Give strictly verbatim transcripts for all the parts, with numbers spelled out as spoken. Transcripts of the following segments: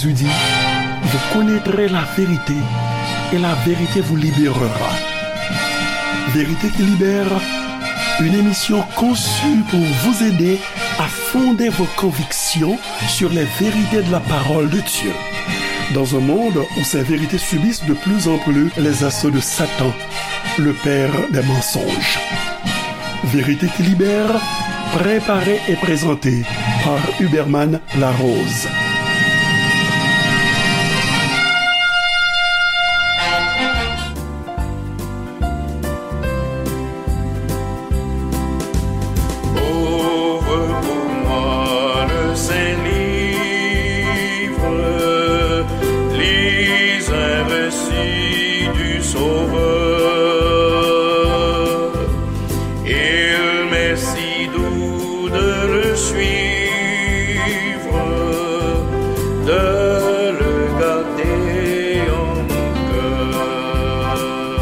Jésus dit, vous connaîtrez la vérité et la vérité vous libérera. Vérité qui libère, une émission conçue pour vous aider à fonder vos convictions sur les vérités de la parole de Dieu. Dans un monde où ces vérités subissent de plus en plus les assauts de Satan, le père des mensonges. Vérité qui libère, préparée et présentée par Huberman Larose. Ouvre pour moi le Saint-Livre, lis un récit du Sauveur. Il m'est si doux de le suivre, de le garder en mon cœur.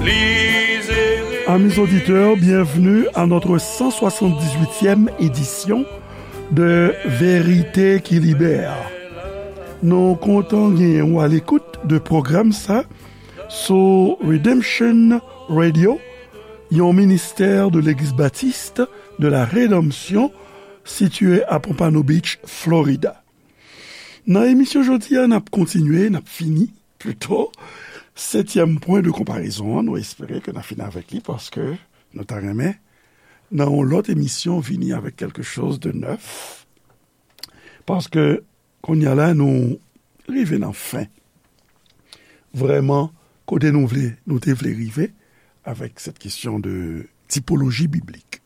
Lisez. Amis auditeurs, bienvenue à notre cent soixante-dix-huitième édition de Vérité qui Libère. Nou kontan genyen w alekout de pwogram sa sou Redemption Radio, yon ministè de Legliz Batis de la Redanmsyon sitiye a Pompano Beach, Florida. Nan emisyon jodi a, n ap kontinye, n ap fini, pito, setyèm pwen de konparezon an. Nou espere ke n a fini avèk li paske nou ta renmen, nan yon lòt emisyon, vini avèk quelque chose de neuf. Paske, kounye a la, nou rive nan fen. Vrèman, kote nou vle, nou te vle rive avèk cette question de typologie biblique.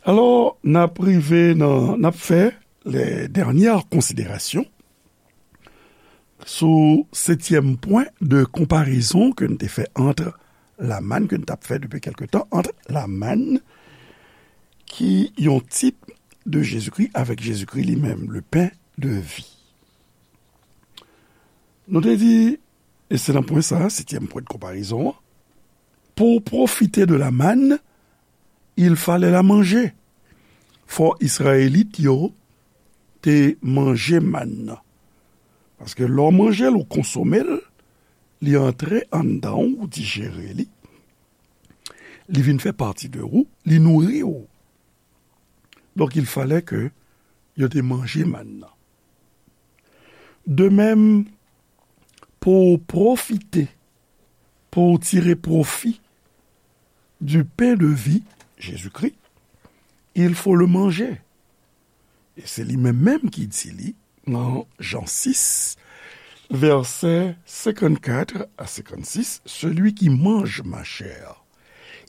Alò, n ap rive nan, n ap fè les dernières considérations sou setyèm pwen de konparezon ke n te fè ant la manne, ke n t ap fè depi kèlke tan, ant la manne, ki yon tip de Jezikri, avèk Jezikri li menm, le pain de vie. Nou te di, e se nan pwen sa, setyèm pwen de konparezon an, pou w pwofite de la manne, il fallait la manger. Fò Izrayelit yo te manje mann nan. Paske lè w manje l, ou konsome l, li antre anndan w, ou dijere li, li vin fè pati de ou, li nouri w. Donk, il fallait que yo te manje mann nan. De même, pou w pwofite, pou w tire pwofi du pain de vie, Jésus-Christ, il faut le manger. E se li menm menm ki di li nan Jan sis, vèsè senkannkat a senkannsis, celui qui mange ma chair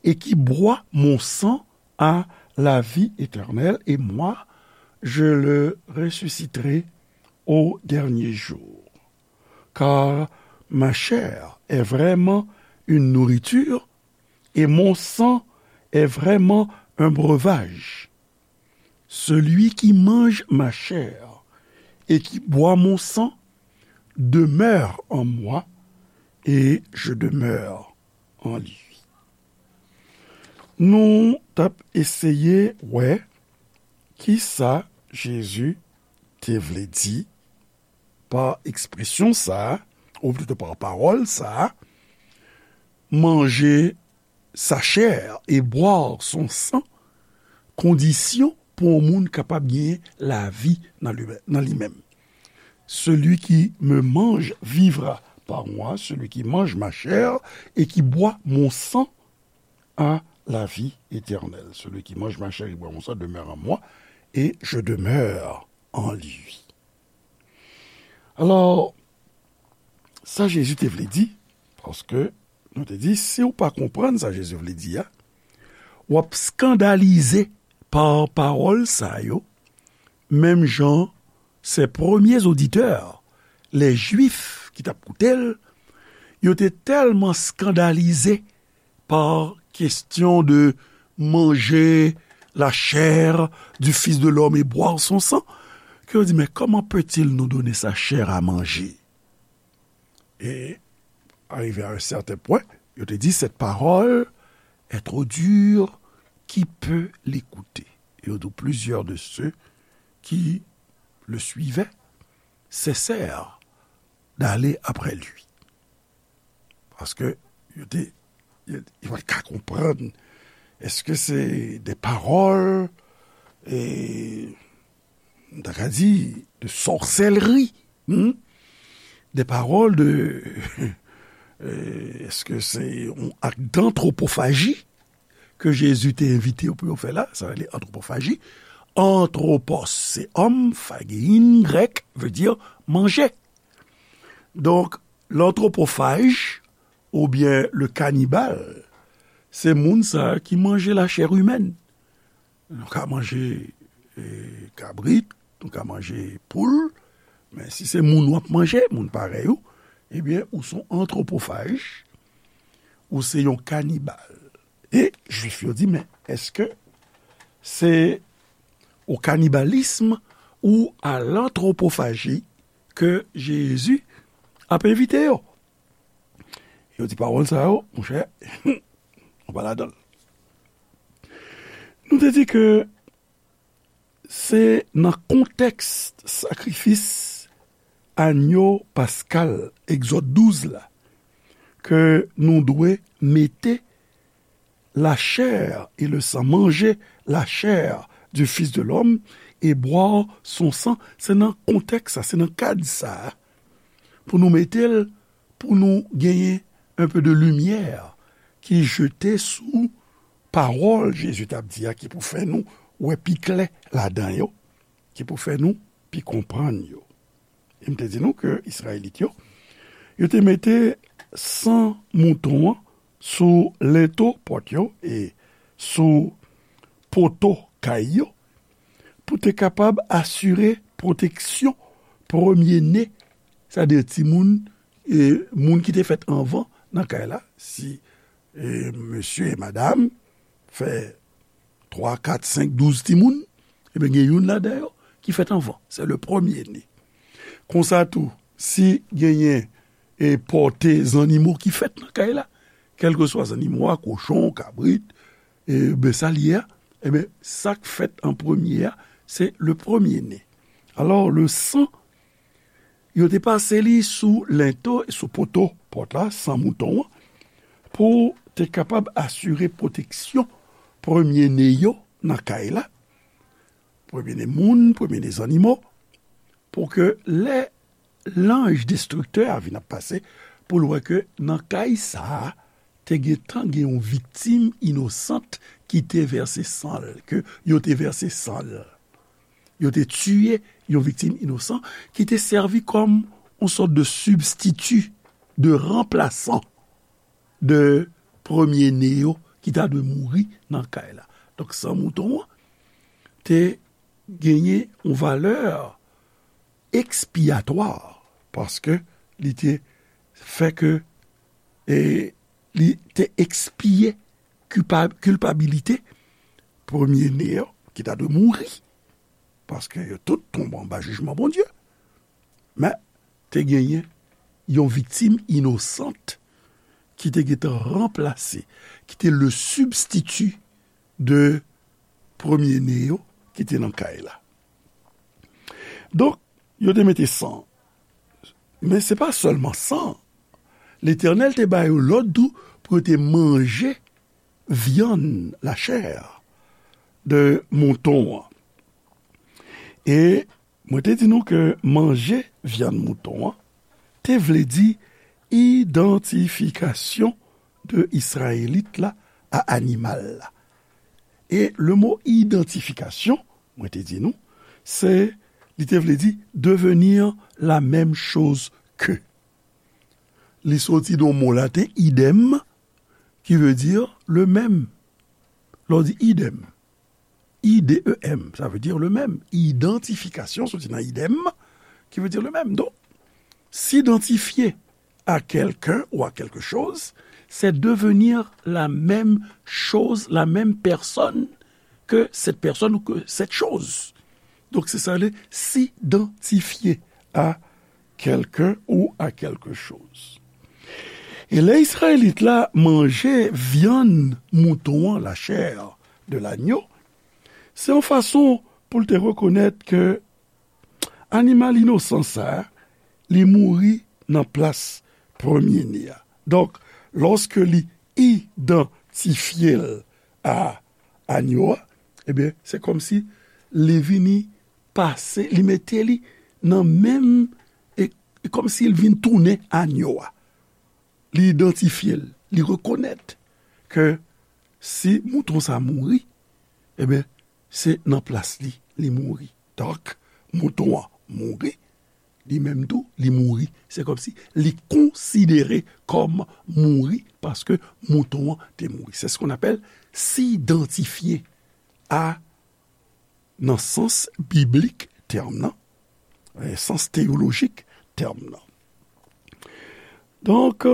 et qui boit mon sang a la vie éternelle, et moi, je le ressusciterai au dernier jour. Car ma chair est vraiment une nourriture, et mon sang est vraiment un breuvage. Celui qui mange ma chair et qui boit mon sang demeure en moi, et je demeure en lui. Nou t ap eseye wè kisa Jezi te vle di pa ekspresyon sa a, ou plito pa pawòl sa a, manger sa chair et boire son sang, kondisyon pou yon moun kapab genyen lavi nan li, nan li menm. Celui qui me mange vivra par moi, celui qui mange ma chair et qui boit mon sang a la vie éternelle. Celui qui mange ma chair et boit mon sang demeure en moi, et je demeure en lui. Alò, sa Jezi te vle di, paske nou te di, si w pa konprann sa Jezi vle di a, w ap eskandalize pa pawòl sa yo, menm jan ses premiers auditeurs, les Juifs ki t ap koute l, yo te tèlman eskandalize pa kesyon de manger la chair du Fils de l'homme et boire son sang, ke yo di, mais comment peut-il nous donner sa chair à manger? Et arrivé à un certain point, yo te di, cette parole est trop dure, qui peut l'écouter? Et on trouve plusieurs de ceux qui le suivait, cessèrent d'aller après lui. Paske yo te, yo, yo pa t ka konprann. Èske se de pawòl, e, m ta ka di, de sòsèlri, hmm? De pawòl de, e, èske se yon ak d'antwopofaji ke Jezi te envite yo pou yo fè la, sa rele antwopofaji. Antwopos, se òm, phagein, grèk, vle di manje. Donk, lantwopofaj, oubyen le kanibal, se moun sa a ki manje la chair humaine. Nou ka manje, e, kabrit, nou ka manje poul, men si se moun w ap manje, moun parèy ou, ebyen, ou se yon antwopofaj, ou se yon kanibal. E Jwif yo di, men èske se au cannibalisme ou à l'anthropophajie ke Jezi ap envite yo? Yo di pawòl sa yo, monchè, nou pa ladan l. Nou te di ke se nan kontèks sakrifis anyo paskal, Egzòd douz la, ke nou dwe mete la chair et le sang, manger la chair du Fils de l'homme et boire son sang. Se nan kontèks sa, se nan kad sa a, pou nou mete l, pou nou genyen un peu de lumière ki jete sou pawòl Jezi t ap di a, ki pou fè nou wè pi klè ladan yo, ki pou fè nou pi konprann yo. E m te di nou ke Izrayelit yo, yo te mete san mouton an sou lento pòt yo e sou poto kay yo pou te kapab asire pwoteksyon premye ne, sètadi timoun, e, moun ki te fèt anvan nan kay la, si, e, mesye e madanm fè twa, kat, senk, douz timoun, ebyen, gen youn ladan yo ki fèt anvan. Se le premye ne. Konsa tou, si genyen, e, pòte zannimo ki fèt nan kay la, kèlkeswa zannimo a, kochon, kabrit, e, ben, sa l ye a, ebyen, sa k fèt an premye a, se le premye ne. Alò, le san, yo te pase li sou lento, sou poto pòt la, san mouton an, pou te kapab asire pwoteksyon premye ne yo nan kay la, premye ne moun, premye ne zannimo, pou ke lè lanj destriktè a vin ap pase, pou l wè ke nan kay sa a, te gentan gen yon viktim inosant ki te vèse san l, ke yo te vèse san l. Yo te tiye yon viktim inosan ki te sèvi kòm yon sòt de sibstiti, de ranplasan de premye ne yo ki ta dwe mouri nan kay la. Donk, san mouton an te genyen yon valè ekspiyatwa, paske li te fè ke, e, li te ekspiye kilpa-, kilpabilite premye ne yo ki ta dwe mouri, paske yo tout tonbe anba jijman Bondye. Men, te genyen yon viktim inosant ki te gentan ranplase, ki te le sibstiti de premye ne yo ki te nan kay la. Donk, yo te mete san. Men se pa sèlman san. Letènèl te ba yo lòd tou pou yo te manje vyann, la chair, de mouton an. E mwen te di nou ke manje vyann mouton an te vle di idantifikasyon de Izrayelit la a animal la. E le mo idantifikasyon, mwen te di nou, se, li te vle di devenir la même chose que. Li soti nan mo laten idem, ki vle di le même. Lè w di idem, I D E M, sa vle di le même. Idantifikasyon soti nan idem, ki vle di le même. Donk, s'identifier à quelqu'un ou à quelque chose, c'est devenir la même chose, la même personne que cette personne ou que cette chose. Donk, se sa le s'identifier à quelqu'un ou à quelque chose. E lè Izrayelit la manje vyann mouton an, la chair de l'agneau, se yon fason pou l te rekonèt ke animal inosan sa a, li mouri nan plas premye ne a. Donk, lòske li idantifye l a anyo a, ebyen, se kòmsi li vini pase, li mete li nan menm, e, e kòmsi l vin tounen anyo a. Li idantifye l, li rekonèt ke si mouton sa mouri, ebyen, se nan plas li, li mouri. Donk, mouton an mouri, li menm tou, li mouri. Se kòmsi li konsidere kòm mouri paske mouton an te mouri. C'est ce qu'on appelle s'identifier à, nan sans biblik tèm nan, e, sans teyolojik tèm nan. Donk,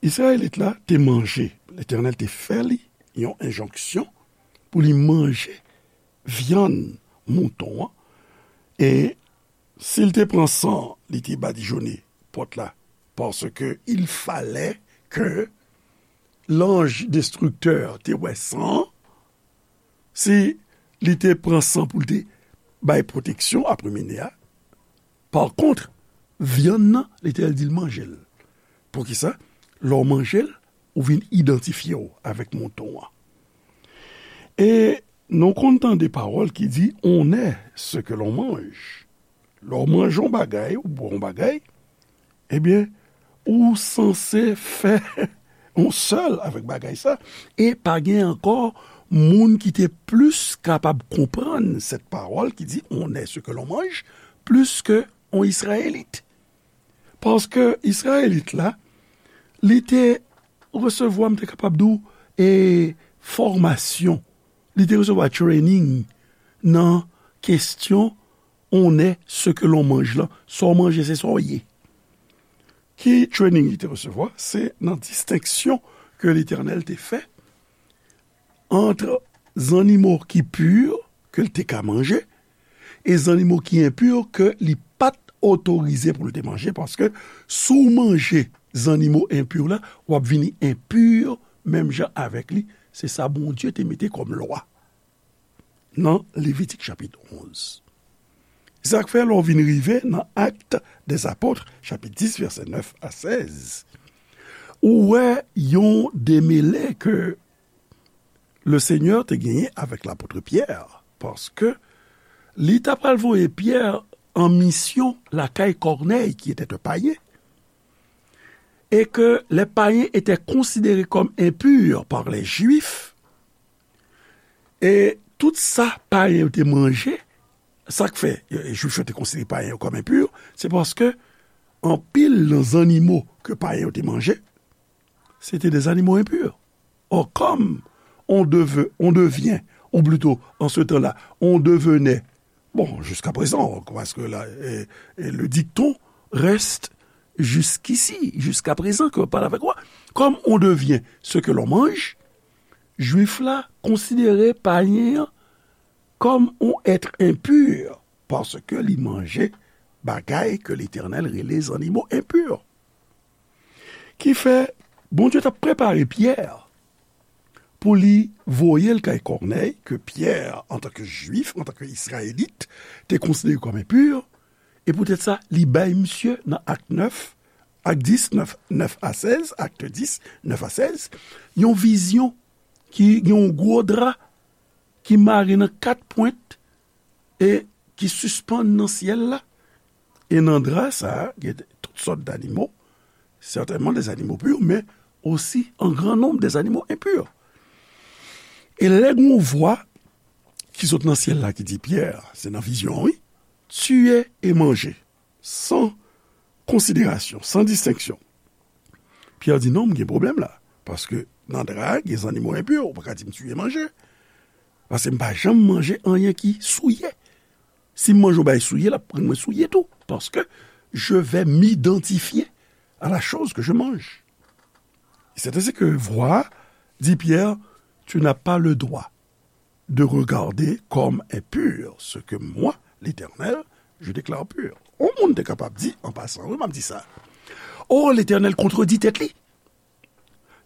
Izrayelit la te manje, Letènèl te fè li yon enjonksyon pou li manje vyann mouton an, e si l te pran san, li te badijone pòt la, paske il fallait que l'ange destructeur te wè san an, si li te pran san pou l te bay pwoteksyon a premye ne a. Pa kont, vyann nan, Letènèl di l manje l. Poukisa? Lè w manje l, ou vin idantifye w avèk mouton an. E nou konn tande pawòl ki di, on est ce que l'on mange. Lè w manje yon bagay, ou bwè yon bagay, ebyen, ou sanse fè yon sèl avèk bagay sa, e pa gen ankò moun ki te plis kapab konprann sèt pawòl ki di, on est ce que l'on mange, plis ke yon Izrayelit. Paske Izrayelit la, li te resevwa, m te kapab di w, e, fòmasyon. Li te resevwa training nan kesyon on est ce que l'on mange lan. Sa w manje, se sa w ye. Ki training li te resevwa? Se nan distenksyon ke Letènèl te fè ant zannimo ki pi, ke l te ka manje, e zannimo ki enpi, ke li pa t otorize pou l te manje, paske si w manje zannimo enpi la, w ap vini enpi menm jan avèk li. Se sa Bondye te mete kòm lwa nan Levitik chapit onz. Sa k fè, lè w vin rive nan Actes des Apôtres, chapit dis, vèsè nèf a sèz, ou wè yon demele ke Lesenyè te genyen avèk lapot Pyè, paske li t apral voye Pyè an misyon lakay Kònèy, ki était un païen, et que les païens étaient considérés comme impurs par les Juifs, e tout sa payen yo te manje, sa k fè, e, Jwif yo te konsidere payen yo kòm enpi, se paske anpil nan zannimo ke payen yo te manje, se te de zannimo enpi. Or, comme on devait, on devient, ou plutôt, en ce temps-là, on devenait, bon, jusqu'à présent, parce que là, eh, eh, le dicton reste jusqu'ici, jusqu'à présent, que je parle avec moi. Comme on devient ce que l'on mange, Jwif la konsidere payen an kòm on èt enpi, paske li manje bagay ke Letènèl rele zannimo enpi. Ki fè, Bondye t ap prepare Pyè pou li voye l kay Kònèy, ke Pyè, antanke Jwif, antanke Izrayelit, te konsidere kòm enpi, e poutèt sa, li bay misye nan Ak nèf, Ak dis, nèf, nèf a sèz, Ak dis, nèf a sèz, yon vizyon ki gen yon gwo dra ki mare nan kat pwent e ki sispann nan syèl la. E nan dra sa a, gen tout sòt d'animo, sètènman des animaux purs, men osi an gran nonb des animaux impurs. E lè gen yon vwa ki sot nan syèl la ki di, Pyè, se nan vizyon an, wi, tiye e manje, san konsiderasyon, san distenksyon. Pyè di, non, m gen pwoblèm la. Paske nan dra a, gen zannimo enpi, ou pa ka di m tiye manje. Paske m pa janm manje anyen ki souye. Si m manje yon bagay souye, l ap rann mwen souye tou. Paske je vais m'identifier à la chose que je mange. C'est ainsi que vwa di Pyè, tu n'as pas le droit de regarder comme impur ce que moi, l'Éternel, je déclare pur. On moun te kapab di, an pasan, wi, m ap di sa. Oh, Letènèl kontredi tèt li.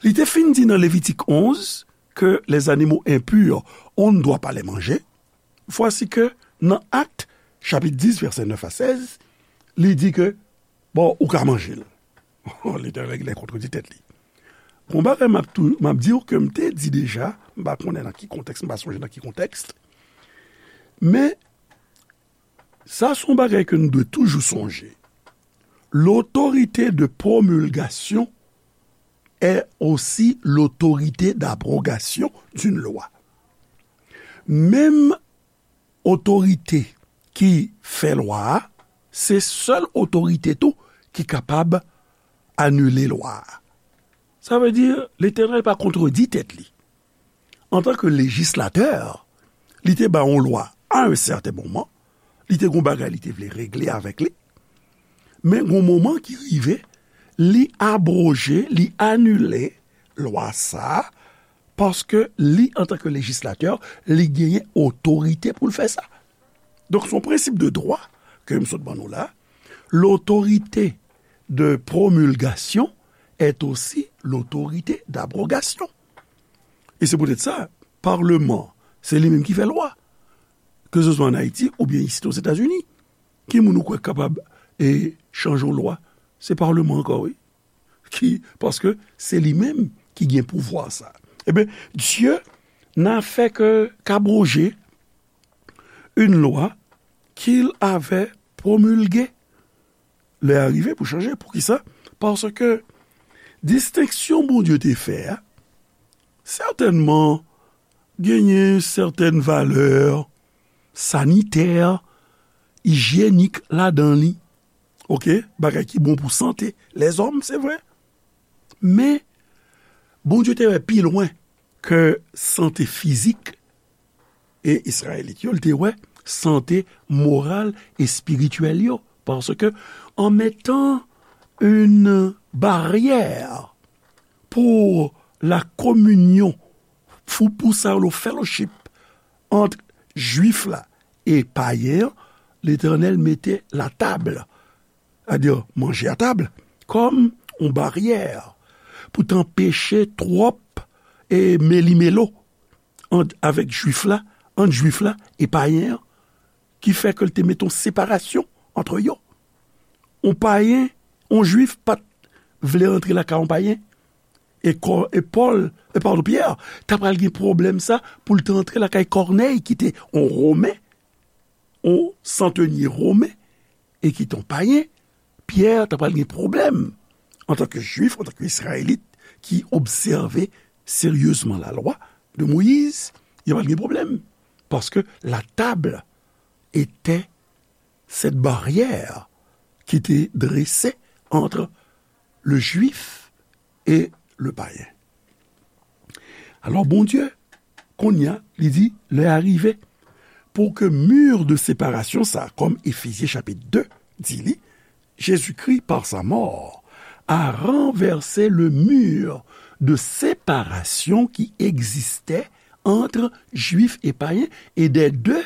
Li te fin di nan Levitik onz ke les animaux impurs, on ne doit pas les manger. Vwasi ke nan Ak, chapit dis, vèsè nèf a sèz, li di ke, bon, ou ka manje l. Letènèl genlè kontredi tèt li. Gon bagay m ap tou, m ap di w ke m te di deja, m pa konnen nan ki kontèks, m pa sonje nan ki kontèks, men sa se yon bagay ke nou dwe toujou sonje. L'autorité de promulgation est aussi l'autorité d'abrogation d'une loi. Menm otorite ki fè lwa a, se sèl otorite tou ki kapab anile lwa a. Sa vle di, Letènèl pa kontredi tèt li. Antanke lejislatè, li te bay yon lwa a yon sèten moman, li te gon bagay li te vle regle avèk li, men gon moman ki rive, li abwoje, li anile lwa sa a, paske li, antanke lejislatè, li genyen otorite pou l fè sa. Donk, se yon prensip de dwa ke m sot ban nou la. L'autorité de promulgation est aussi l'autorité d'abrogation. E se poutèt sa, palman, se li menm ki fè lwa. Ke se swa ann Ayiti oubyen isit Ozetazini. Ki moun ou kwè k kapab, e, chanje yon lwa? Se palman ankò, wi. Ki, paske se li menm ki gen pouvwa sa. Ebyen, Dieu n'a fait que qu'abroger une loi qu'il avait promulguée. Lè a rive pou chanje. Poukisa? Paske distenksyon Bondye te fè a, sètènman, genyen sètèn valè sanitè, ijyenik ladan li. Oke? Bagay ki bon pou sante lèzòm, se vre. Men, Bondye te wè pi lwen ke sante fizik e Izrayelit yo, li te wè sante moral, espirityèl yo. Paske, en mettant une barrière pour la communion, pou, pou sa yo, le fellowship ant Jwif la e payen an, Letènèl mete latab, sètadi manje a tab, kòm yon baryè pou t anpeche twòp, e, melimelo ant, avèk Jwif la, ant Jwif la e payen an, ki fè ke l te mete yon separasyon ant yo. Yon payen, yon Jwif pa t vle rantre lakay yon payen. E kò, e Pòl, e padon, Pyè, ta pral gen pwoblèm sa pou l te antre lakay Kònèy, ki te yon Women, yon santenye Women, e ki te yon payen. Pyè ta pral gen pwoblèm antanke Jwif, antanke Izrayelit, ki obsève seryezman lalwa de Moyiz, li pral gen pwoblèm. Paske la table était cette barrière qui était dressée entre le Juif et le païen. Alò, Bondye, kounye a, li di, lè a rive pou ke mur de séparation sa, kòm Efezyen chapit de di li, Jésus-Christ, par sa mort, a renversé le mur de séparation qui existait entre Juifs et païens et des deux,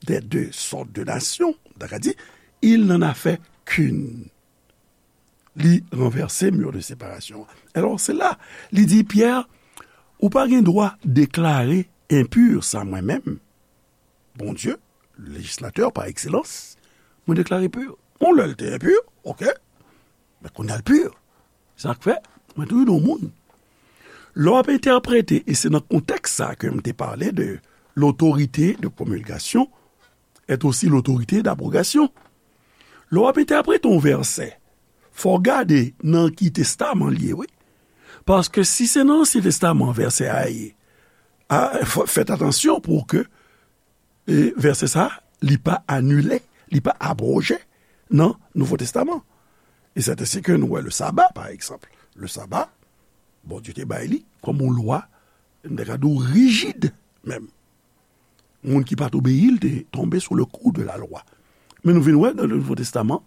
des deux sortes de nations, dakò, di, il n'en a fait qu'une. Li ranvèse mur de séparation. Alò, se la, li di, Pyè, ou pa gen dwa deklare enpi sa mwen menm, Bondye, lejislatè pa ekselans, mwen deklare pi. Bon, lè l te enpi, oke, men kounye a l pi. Sa k fè, mwen toujou di yon moun, lè w ap entèprete, e se nan kontèks sa ke m te pale de l'autorité de promulgation est aussi l'autorité d'abrogation. Lè w ap entèprete yon vèsè, fò w gade nan ki testaman l ye, wi. Paske si se nan Ansyen Testaman vèsè a ye, a, fò, fèt atansyon pou ke, e, vèsè sa, li pa anile, li pa abwoje nan Nouvo Testaman. E sèten se ke nou wè le saba, pa egzanp. Le saba, Bondye te bay li kòm yon lwa, m ta ka di w rijid menm. Moun ki pa t obeyi l te tonbe sou le kou de la lwa. Men nou vin wè nan le Nouvo Testaman,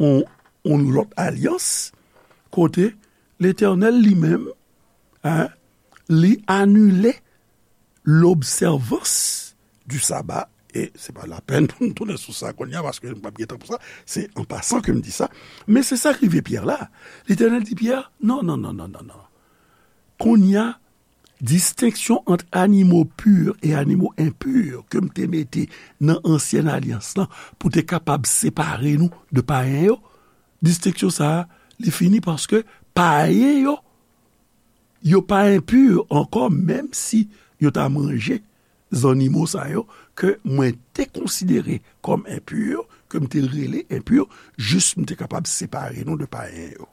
yon, yon lòt alyans, kote Letènèl li menm, en, li anile l'observance du sabbat, e se pa lapèn pou m tounen sou sa kounye a, paske m p ap gen tan pou sa, se an pasan ke m di sa, men se sa k rive Pyè la. Letènèl di Pyè, non, non, non, non, non, non. Kounye a, distenksyon ant animo pur e animo enpur ke m te mete nan ansyen alyans lan pou te kapab separe nou de payen yo, distenksyon sa a, li fini paske payen yo, yo pa enpur ankò, menm si yo ta manje zannimo sa yo ke mwen te konsidere kòm enpur, ke m te rele enpur, jis m te kapab separe nou de payen yo.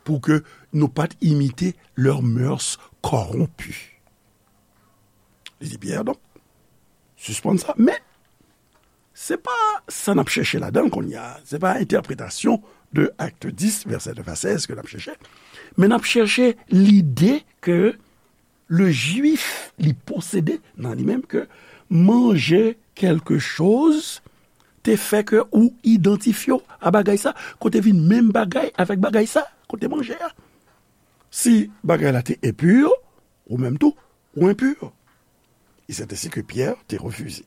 Pou ke nou pa t imite leurs mœurs corrompues. Li di Pyè, donk, sispann sa, men se pa sa n ap chèche ladan l kounye a. Se pa entèpretasyon de Acte dix, vèsè nèf a sèz ke n ap chèche. Men n ap chèche lide ke le Juif li posede nan li menm ke manje kèlke choz te fè ke ou idantifye w a bagay sa, kote vin menm bagay avèk bagay sa, kote manje a. Si bagay la te enpur, ou menm tou, ou enpur. E c'est ainsi que Pierre te refize.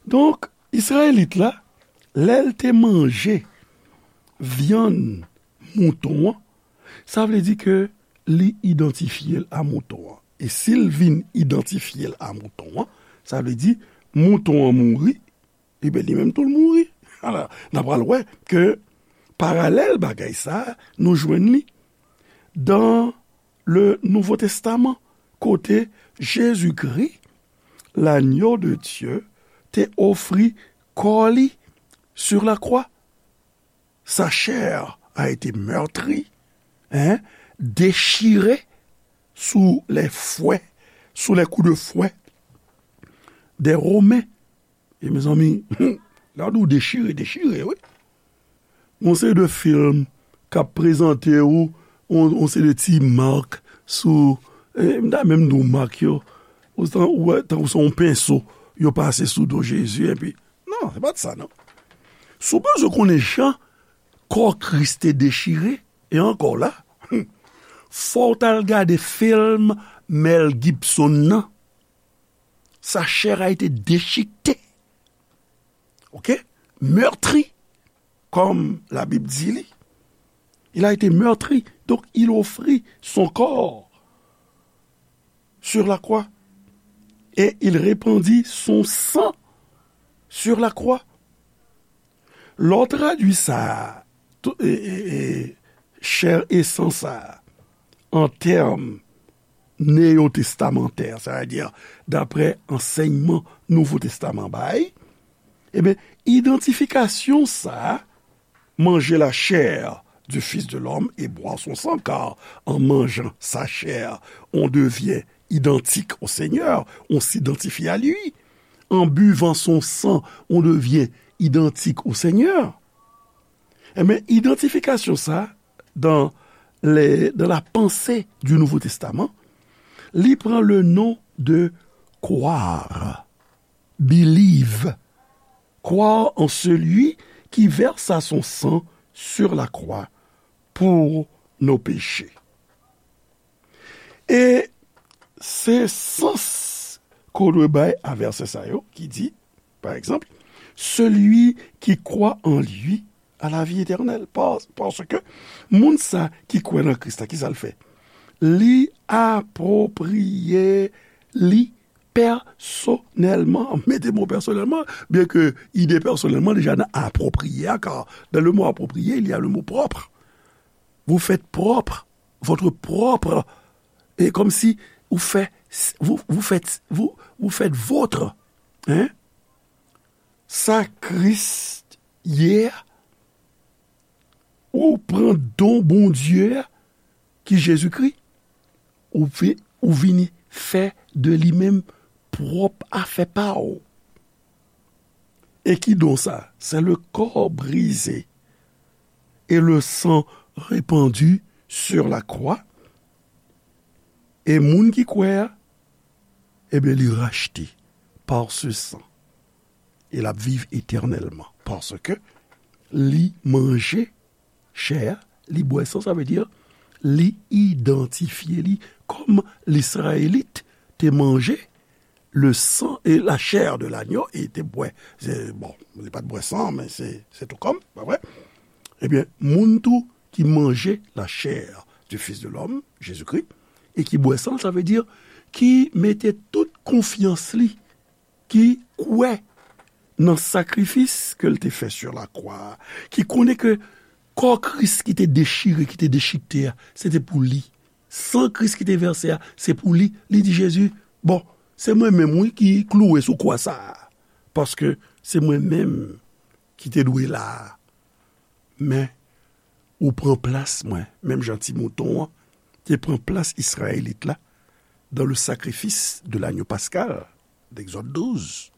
Donk, Izrayelit la, lè l te manje vyann mouton an, sa vle di ke li idantifye l a mouton an. E si l vin idantifye l a mouton an, sa vle di mouton an mouri, ebyen, li menm tou l mouri. Ala, n a pral wè ke paralèl bagay sa a, nou jwenn li dans le Nouveau Testament, kote Jezikri, l'agneau de Dieu, te ofri kò li sur la croix. Sa chair a été meurtrie, hein, déchirée sous les fouets, sous les coups de fouet des Romains. E mezanmi, lè w di w dechire, dechire, wi. Yon seri de fim k ap prezante w yon, yon seri de ti mak sou, e, m ta menm di w mak yo, ou tan, ou wè, tankou se yon penso yo pase sou do Jezi, epi, non, se pa t sa, non. Si w bezwen konnen jan kò Kris te dechire, e ankò la, fò w t al gade fim Mel Gibson nan. Sa chair a été déchiquetée. OK? Meurtri, comme la Bible dit, li. Il a été meurtri, donc il offrit son corps sur la croix et il répandit son sang sur la croix. Lè w tradui sa, tou, e, e, e, chè e san sa, an tèm neyotestamantè, sa vle di, daprè ansèyman Nouvo Testaman bay, ebyen, idantifikasyon sa, manger la chair du Fils de l'homme et boire son sang, car en mangeant sa chair, on devient identique au Seigneur, on s'identifie à lui. En buvant son sang, on devient identique au Seigneur. Ebyen, idantifikasyon sa, dans les, dans la pensée du Nouveau Testament, li pran le nom de croire, believe, croire en celui qui versa son sang sur la croix pour nos péchés. E se sans ke w dwe bay a vèsè sa yo ki di, pa egzanp, celui qui croit en lui a la vie éternelle. Pas-, paske moun sa ki kwè nan Kris la, ki sa l fè? Li apwopriye li pèsonèlman, mete mo pèsonèlman, byen ke ide pèsonèlman deja nan apwopriye a, car dans le mot approprié, il y a le mot propre. Vous faites propre, votre propre, et comme si vous faites, vous, vous faites, vous, vous faites votre, hein? Sa Kris ye a, ou pran don Bondye a, ki Jezikri, ou vi-, ou vini fè de li menm pwòp afè pa w. E ki don sa? C'est le corps brisé et le sang répandu sur la croix. E moun ki kwè a, ebyen, li rachte par ce sang. E l ap viv etènèlman. Paske li manje chè a, li bwè san, sa vle di, li idantifye li kòm Lizrayelit te manje le sang et la chair de l'agneau, e te bwè, se, bon, li pa t bwè san, men se, se tou kòm, pa vre? Ebyen, moun tou ki manje la chair du Fils de l'homme, Jezikri, e ki bwè san l, sa vle di ki mete tout konfyans li, ki kwè nan sakrifis ke l te fè sur la croix, ki konnen ke kò Kris ki te dechire, ki te dechikte a, se te pou li. San Kris ki te vèse a, se pou li. Li di Jezi, bon, se mwen menm, wi, ki klouwe sou kwa sa a. Paske se mwen menm ki te dwe la a. Men, ou pran plas mwen, menm jan ti mouton an te pran plas Izrayelit la dans le sacrifice de l'agneau pascal, Egzòd douz.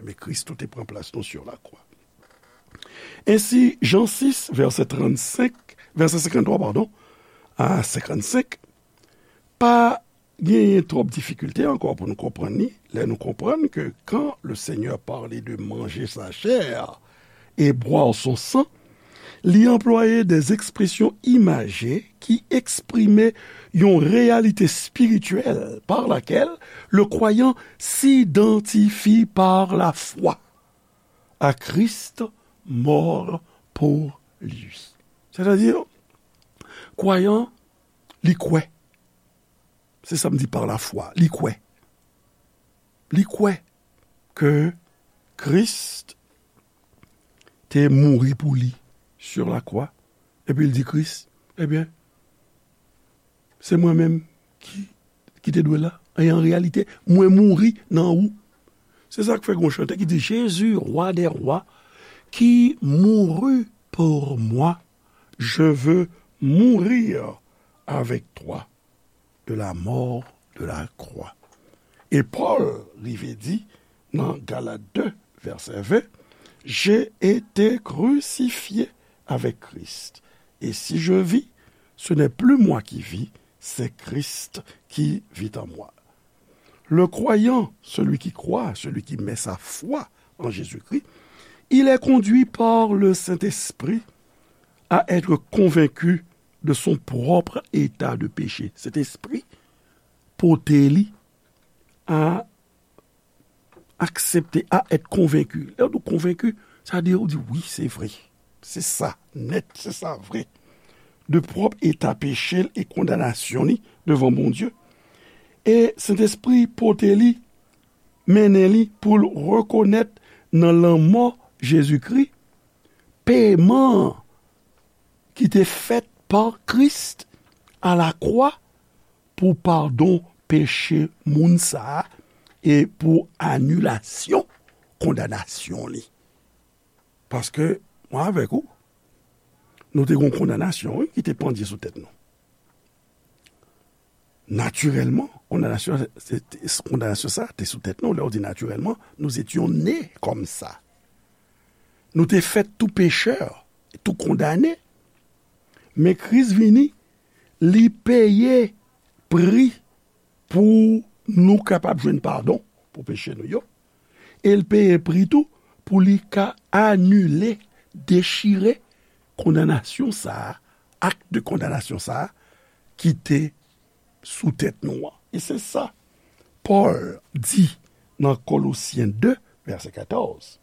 Men Kris tou te pran plas nou sur la croix. Ensi, Jan sis, vèsè trannsenk, vèsè senkanntwa, padon, a senkannsenk, pa genyen twòp difikilte ankò pou nou konprann li, lè nou konprann ke quand le Seigneur parlait de manger sa chair et boire son sang, li anplwaye des expressions imagées ki eksprime yon réalité spirituelle par laquelle le croyant s'identifie par la foi à Christ mort pour lui. Sètadi, kwayan, li kwè. Se sa m di par la foi. Li kwè. Li kwè ke Kris te mouri pou li sur la croix. Epi l di Kris, ebyen, se mwen menm ki, ki te dwe la. E an reyalite, mwen mouri nan ou. Se sa k fè gon chante ki di, Jésus, roi des rois, qui mourut pour moi, je veux mourir avec toi de la mort de la croix. E Pòl rive di nan Galat de, vèsè ven, J'ai été crucifié avec Christ, et si je vis, ce n'est plus moi qui vis, c'est Christ qui vit en moi. Le croyant, celui qui croit, celui qui met sa foi en Jésus-Christ, il est conduit par le Saint-Esprit à être convaincu de son propre état de péché. Sentespri pote li a aksepte, a èt konvenki. Lè w di konvenki, sa vle di ou di, wi, se vre. Se sa, nèt, se sa, vre. De pwòp eta peche l e kondanasyon li devan Bondye. E Sentespri pote li, mennen li pou l rekonèt nan lanmò Jezikri, peman ki te fèt pa Kris alakwa pou padon peche moun sa a e pou anilasyon kondanasyon li. Paske, mwen avèk ou, nou te gen yon kondanasyon, wi, ki te pandye sou tèt nou. Natirèlman, kondanasyon, se, se, kondanasyon sa a te sou tèt nou. Lè w di natirèlman, nous étions nés comme ça. Nou te fèt tou pechè, tou kondane. Men Kris vini, li peye pri pou nou kapab jwenn padon pou peche nou yo. E l peye pri tou pou li ka anile, dechire kondanasyon sa a, ak de kondanasyon sa a ki te sou tèt nou an. E se sa Pòl di nan Kolosyen de, vèsè katòz.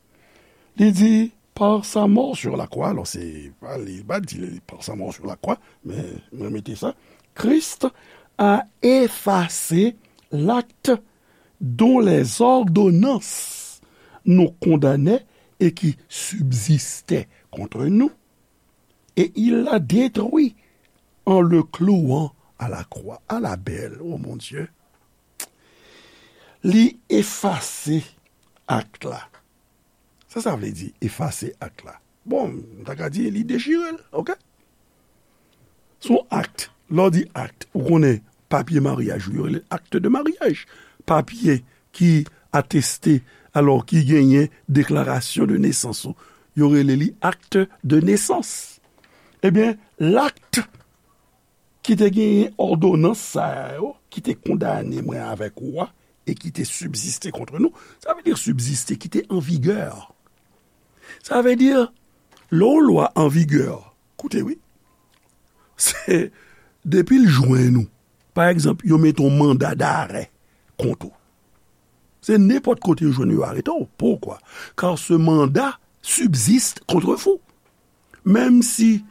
Li di, par sa mort sur la croix, alò se, pa li, pa di li, par sa mort sur la croix, men mwen mete sa, Christ a effacé l'acte dont les ordonnances nous condamnaient et qui subsistaient contre nous, et il l'a détruit en le clouant à la croix. Ala bèl, o Bondye. Li efase ak la. Sa sa vle di, efase ak la? Bon, m ta ka di, li dechire l, oke? Se yon ak. Lè w di ak, ou konnen papye maryaj ou, yo rele l acte de mariage. Papye ki ateste, alò ki genyen deklarasyon de nesans ou, yo rele li acte de naissance. Ebyen, l ak ki te genyen òdonans sa yo, ki te kondane mwen avèk ou a, e ki te sibziste kont nou. Sa vle di sibziste, ki te an vigè. Sa vle di, lè yon lwa an vigè, koute wi, se depi l jwenn ou, pa egzanp, yo mete yon manda darè kont ou. Se nenpòt kote yo jwenn ou, yo arete w. Poukwa? Car ce mandat subsiste contre vous. Menm si,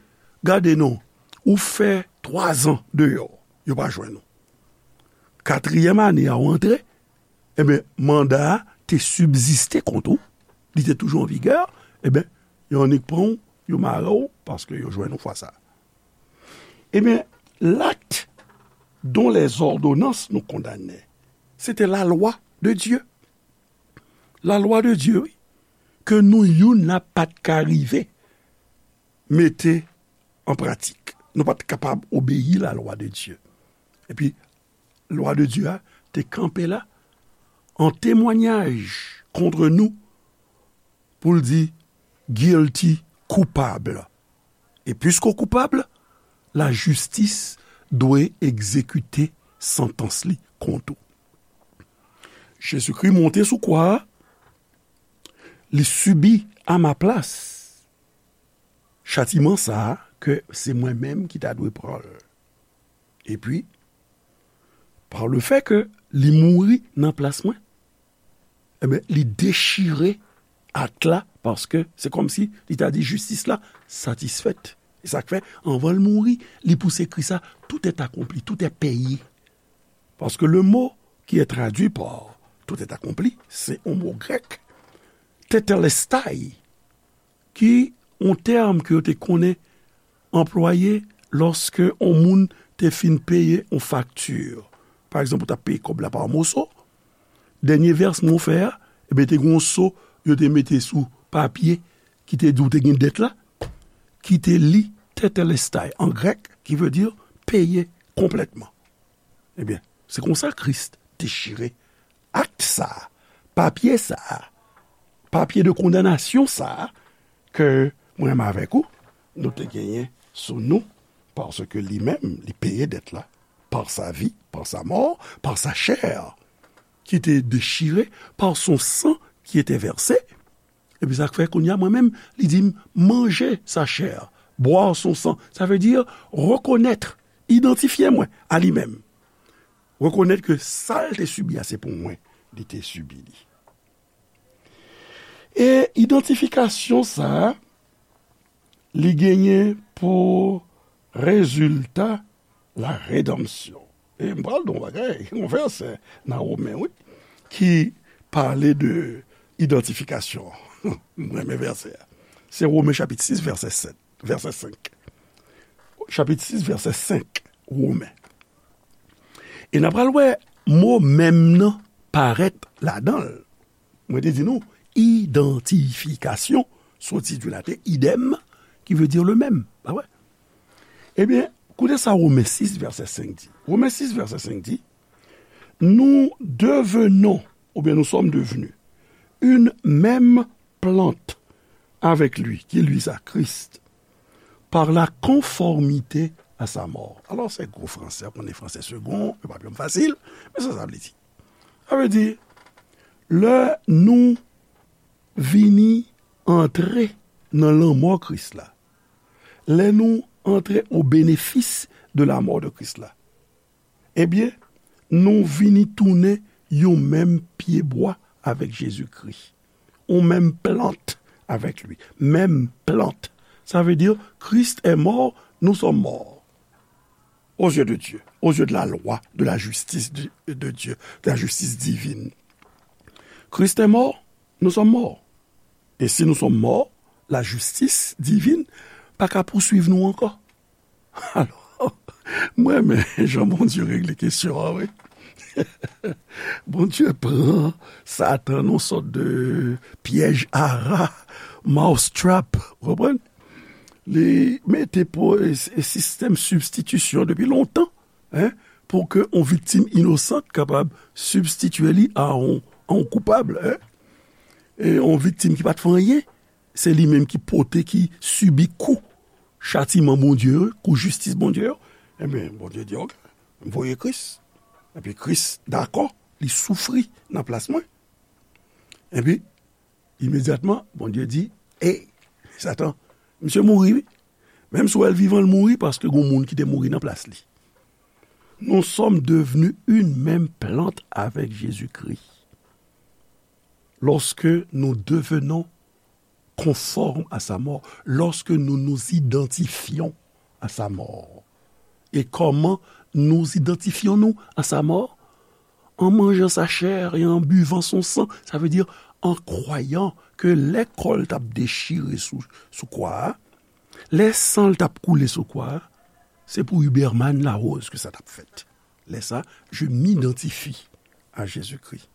gade non, ou fè twazan deyò, yo pa jwenn ou. katriyèm ane a w antre, ebyen, manda a te sibziste kont ou, li te toujou an vigè, ebyen, yo annik pran w, yo mare w, paske yo jwenn ou fwa sa. Ebyen, l'acte dont les ordonnances nous condamnaient, c'était la loi de Dieu. La loi de Dieu, wi, ke nou youn la pa t ka rive mete an pratik. Nou pa t kapab obeyi la lwa de Dye. Epi, lwa de Dye a te kanpe la an temwayaj kont nou pou l di, guilty, koupab. E piske w koupab, lajistis dwe egzekite santans li kont ou. Jezikri monte sou kwa a, li sibi a ma plas chatiman sa a ke se mwen menm ki ta dwe pran l. Epi, pa le fè ke li mouri nan plas mwen, ebyen, li dechire ak la, paske se kòmsi li ta di jistis la satisfèt. E sa k fè, anvan l mouri, li pouse kri sa, tout est accompli, tout est payé. Parce que le mot qui est traduit par tout est accompli, c'est un mot grec, tetelestai, ki yon tèm ke yo te konnen anplwaye lòske yon moun te fin peye yon fakti. Pa egzanp, ou t ap peye kòb la pa moso, dènye vèsman w fè a, ebyen, te gen yon so yo te mete sou papye ki te di w te gen dèt la, ki te li tetelestai an grèk, ki vle di peye konplètman. Ebyen, se konsa Kris dechire akt sa a, papye sa a, papye de kondanasyon sa a, ke mwen menm avèk ou, nou te genyen sou nou, paske li menm, li peye dèt la, par sa vie, par sa mort, par sa chair, qui était déchirée, par son sang qui était versé. Epi sa k fè kounye a, mwen menm, li di m, manje sa chè, bwè son san. Sa vle di, rekonèt, idantifye mwen a li menm. Rekonèt ke sa l te sibi a, se pou mwen, li te sibi li. E idantifikasyon sa a, li genyen pou rezilta la redanmsyon. E m pral di w yon bagay, yon vèsè nan Women, wi, ki pale de idantifikasyon. M renmen vèsè a. Se Women chapit sis, vèsè sèt, vèsè senk. Chapit sis, vèsè senk, Women. E n a pral wè mo menm nan parèt ladan l. Mwen te di nou, idantifikasyon, soti di Laten, idem, ki vle di le menm. Pa vre? Ebyen, koute sa Women sis, vèsè senk di. Women sis, vèsè senk di, nous devenons, oubyen nous sommes devenus, une même plante avec lui, qui lui sa, Christ, par la conformité à sa mort. Alò, se gwo fransè, konnen fransè segon, yo pa byen fasil, men sa sa vle di. Sa vle di, lè nou vini antre nan lanmò Kris la, lè nou antre o benefis de la mort de Christ la, ebyen, nou vini tounen yon menm pyebwa avèk Jezikri. Yon menm plant avèk li. Menm plant. Sa vle di, Christ est mort, nous sommes morts. Aux yeux de Dieu, aux yeux de la loi, de la justice de, de Dieu, de la justice divine. Christ est mort, nous sommes morts. E si nou sòm mò, lajistis divin pa ka pouswiv nou ankò. Alò, mwen renmen jan Bondye regle kesyon an, wi. Bondye pran Satan nan yon sòt de pyèj ara, mousetrap, ou konprann? Li mete po-, e, e sistèm sibstitisyon depi lontan, en, pou ke yon viktim inosan kapab sibstitye li a yon, a yon koupab, en. E yon viktim ki pa t fè anyen, se li menm ki pote, ki sibi kou chatiman Bondye yo, kou jistis Bondye yo. Enben, Bondye di, "Oke, m voye Kris." Epi Kris dakò, li soufri nan plas mwen. Epi, imedyatman, Bondye di, "Ey, Satan, misye mouri, wi. Menm si w wè l vivan, l mouri paske gon moun ki te mouri nan plas li." Nous sommes devenus une même plante avec Jésus-Christ. Lorsque nous devenons conformes à sa mort, lorsque nous nous identifions à sa mort. Et comment nous identifions-nous à sa mort? En mangeant sa chair et en buvant son sang, sa vle di, an kwayan ke lè kò l t ap dechire sou, sou kwa a, lè san l t ap koule sou kwa a, se pou Huberman Larose ke sa t ap fèt. Lè sa, je m'identifie à Jésus-Christ.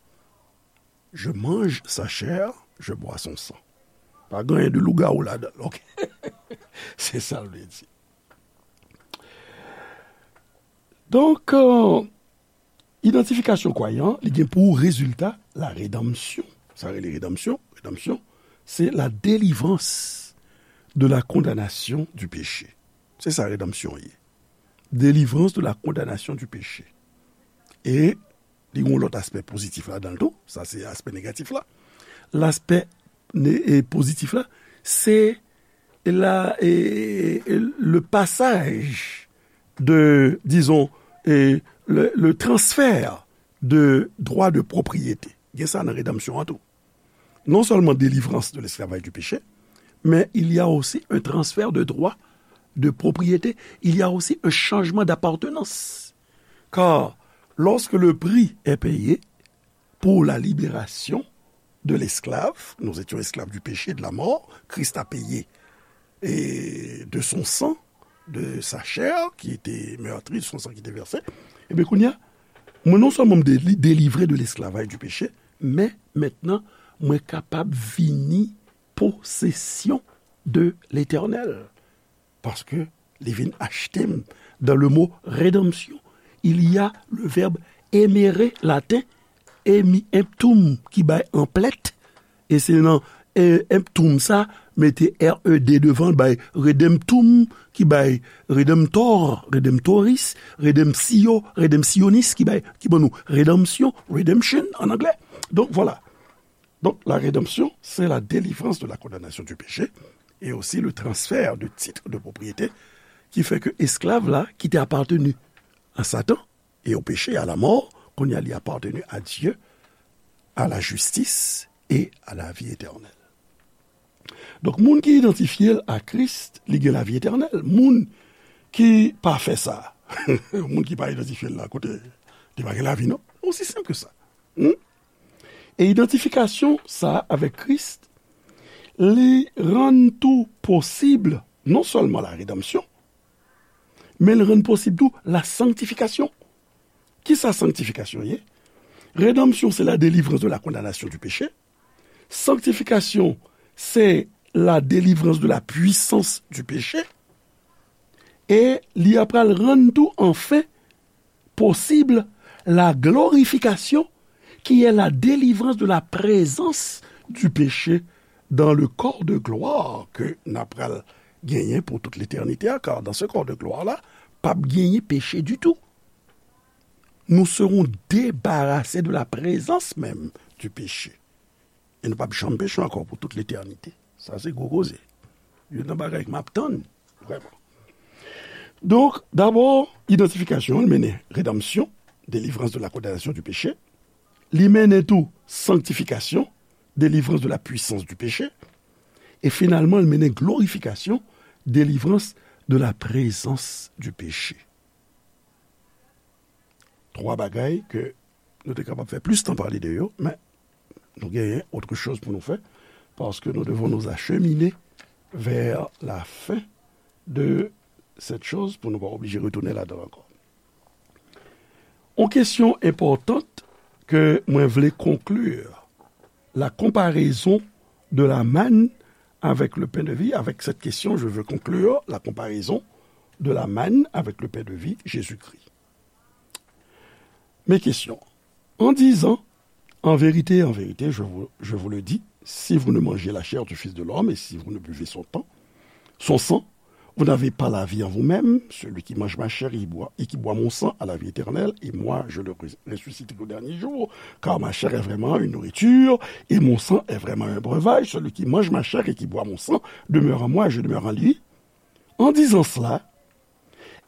Je mange sa chair, je bois son sang. Pa gen anyen de lougawou ladan l, ok? Se sa l vle di. Donk, euh, idantifikasyon kwayan, li gen pou rezilta la redanmsyon. Sa rele redanmsyon. Redanmsyon, se la délivrance de la condamnation du péché. Se sa redanmsyon ye. Délivrance de la condamnation du péché. E li gen yon lòt aspè pozitif ladan l tou. Sa se aspè negatif la. Laspè ne- e pozitif la, se la, e, e, le passage de, disons, e, le, le transfert de droit de propriété. Gen sa nan redanmsyon an tou. Non seulement délivrance de l'esclavage du péché, mais il y a aussi un transfert de droit de propriété, il y a aussi un changement d'appartenance. Car lorsque le prix est payé pour la libération de l'esclave, nous étions esclaves du péché et de la mort, Christ a payé et de son sang, de sa chair qui était meurtrie, de son sang qui était versé. Ebyen, kounye a, mwen non sèlman m deli-, delivre de l'esclavage du péché, men mentnan, mwen kapab vini posesyon de Letènèl. Paske li vin achte m. Dans le mot rédemption, il y a le verbe emere laten, emi emptum, ki bay anplèt, e se nan, e, emptum sa, mete R E D devan, bay redemptum, ki bay redemptor, redemptoris, redemptio, redemptionis, ki bay, ki ban nou redanmsyon, redemption en anglais. Donc voilà. Donc la rédemption, c'est la délivrance de la condamnation du péché et aussi le transfert de titres de propriété qui fait que esclave là, qui était appartenu à Satan et au péché, à la mort, qu'on y a lui appartenu à Dieu, à la justice et à la vie éternelle. Donk, moun ki idantifye l a Kris, li gen lavi etènèl. Moun ki pa fè sa, moun ki pa idantifye l la, kote li pa gen lavi, non. Osi senp ke sa. Hmm? E idantifikasyon sa a avèk Kris, li rann tou posib non sèlman la redanmsyon, men li rann posib tou la sanktifikasyon. Kisa sanktifikasyon ye? Redanmsyon, se la délivrance de la condamnation du péché. Sanktifikasyon, se la délivrance de la puissance du péché. E li apral rann tou, anfen, posib la glorification, qui est la délivrance de la présence du péché dans le corps de gloire ke n apral genyen pou tout letènite a, car dans ce corps de gloire là, p ap genyen peche ditou. Nous serons débarrassés de la présence même du péché. E nou p ap janm peche ankò pou tout letènite. Sa se gwo koze. Youn nan bagay ke m ap tann, vrèman. Donk, dabò, idantifikasyon an, li mennen redanmsyon, délivrance de la condamnation du péché. Li mennen tou sanktifikasyon, délivrance de la puissance du péché. E finalman, li mennen glorifikasyon, délivrance de la présence du péché. Twa bagay ke nou te kapab fè plis tan pale de yo, men nou genyen autre chose pou nou fè, paske nous devons nous acheminer vers la fin de cette chose pou nou pa oblije retounen ladan l ankò. Yon kesyon enpòtan ke mwen vle conclure, la comparaison de la manne avec le pain de vie. Avec cette question, je veux conclure la comparaison de la manne avec le pain de vie, Jésus-Christ. Mes questions. En disant, en vérité, en vérité, je vous, je vous le dis, si vous ne mangez la chair du Fils de l'homme et si vous ne buvez son temps, son sang, vous n'avez pas la vie en vous-même. Celui qui mange ma chair et qui boit, et qui boit mon sang a la vie éternelle, et moi, je le res-, ressusciterai au dernier jour, car ma chair est vraiment une nourriture, et mon sang est vraiment un breuvage. Celui qui mange ma chair et qui boit mon sang demeure en moi, et je demeure en lui. En disant cela,